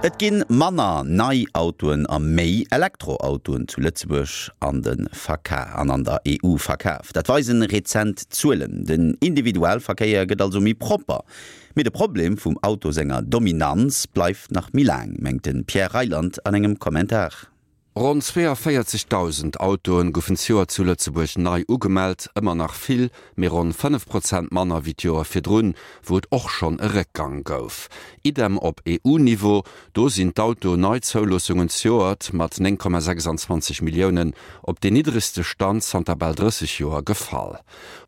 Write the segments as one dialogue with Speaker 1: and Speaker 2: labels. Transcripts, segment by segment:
Speaker 1: Et ginn manner nei Autoen a méi Elektroautoen zu Lëtzebuerg an de Verka an an der EU verkaf. Dat weisen rezent Zuelen. Den Individualverkéier gëtt also méi propper. Mee de Problem vum Auto senger Dominanz bleift nach méi laang, mengt de Pierre Reyland an engem Kommentar.
Speaker 2: Ronn 42.000 Autoen goufen d'Joer zu Lëtzebuerg nei ugemellt, ëmmer nach vill, mee ronn 5 Prozent manner wéi d'Joer virdrun, wou et och schonn e Réckgang gouf. Idem op EU-Niveau, do sinn d'Auto-Neizouloossungen zejoert mat 9,26 Milliounen op deen niddregste Stand zanter bal 30 Joer gefall.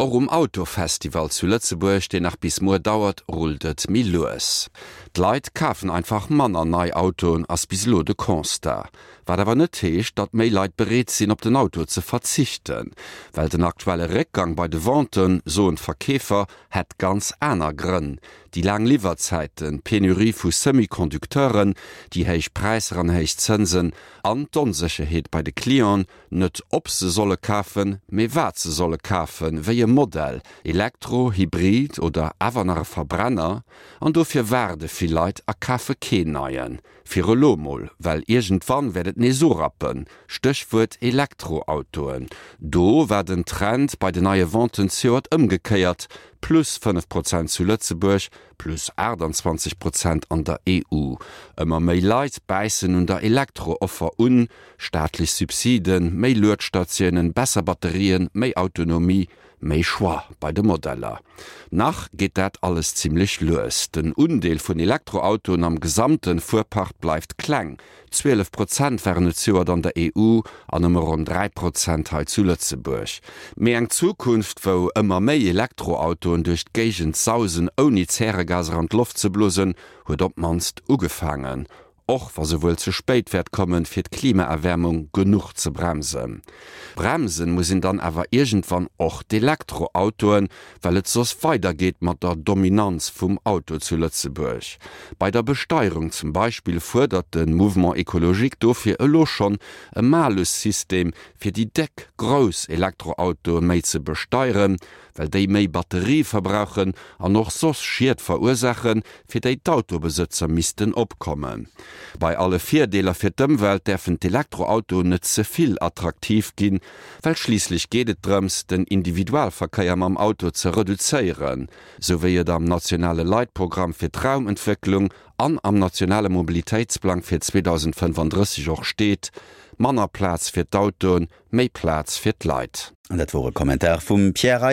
Speaker 2: Och um Autofestival zu Lëtzebuerg, deen nach bis muer dauert, rullt et méi lues. D'Leit kafen einfach manner nei Autoen, ass bis elo de Constat. Wat awer net heescht, datt méi Leit bereet sinn, op den Auto ze verzichten. Well den aktuelle Réckgang bei de Venten, soen d'Verkeefer, hätt ganz aner Grënn, Déi laang Liwwerzäiten, d'Penurie vu Semi-Conducteuren, déi héich Präisser an héich Zënsen an d'Onsécherheet bei de Clienten, Net ob se solle kafen, mee wat se solle kafen, wéi e Modell, Elektro, Hybrid oder awer nach e Verbrenner. An dofir waarde vill Leit a kafe keen neien. Fir elo mol, well iergendwann wäert et nees urappen. Stéchwuert Elektroautoen. Do war den Trend bei den neie Venten zejoert ëmgekéiert, plus 5 Prozent zu Lëtzebuerg, plus 28 Prozent an der EU. Ëmmer méi Leit bäissen un der Elektro-Offer un, Staatlech Subsiden, méi Luedstatiounen, besser Batterien, méi Autonomie, méi Choix bei de Modeller. Nach geet dat alles zimmlech lues. Den Undeel vun Elektroautoen am gesamte Fuerpark bleift kleng, 12 Prozent waren et zejoert an der EU an nëmme ronn 3 Prozent hei zu Lëtzebuerg. Mee eng Zukunft, wou ëmmer méi Elektroautoen duerch d'Géigend sausen ouni Zäregaser an d'Loft ze blosen, huet op d'mannst ugefaangen. Och wa se wuel ze spéit wäert kommen, fir d'Klimaerwäermung genuch ze bremsen. Bremsen muss een dann awer iergendwann och d'Elektroautoen, well et soss weidergeet mat der Dominanz vum Auto zu Lëtzebuerg. Bei der Besteierung zum Beispill fuerdert de Mouvement Ecologique dofir elo schonn e Malus-System, fir déi déck, grouss Elektroautoe méi ze besteieren, well déi méi Batterie verbrauchen an och soss Schied verursaachen, fir déi d'Autobesëtzer missten opkommen. Bei alle Virdeeler fir d'Ëmwelt däerfen d'Elektroautoen net ze vill attraktiv ginn, well schliisslech geet et drëms, den Individualverkéier mam Auto ze reduzéieren, sou wéi et am nationale Leitprogramm fir d'Raumentwécklung an am nationale Mobilitéitsplang fir 2035 och steet, manner Plaz fir d'Autoen, Méi Plaz fir d'Leit.
Speaker 1: An dat wor e Kommentar vum Pierre Reyland.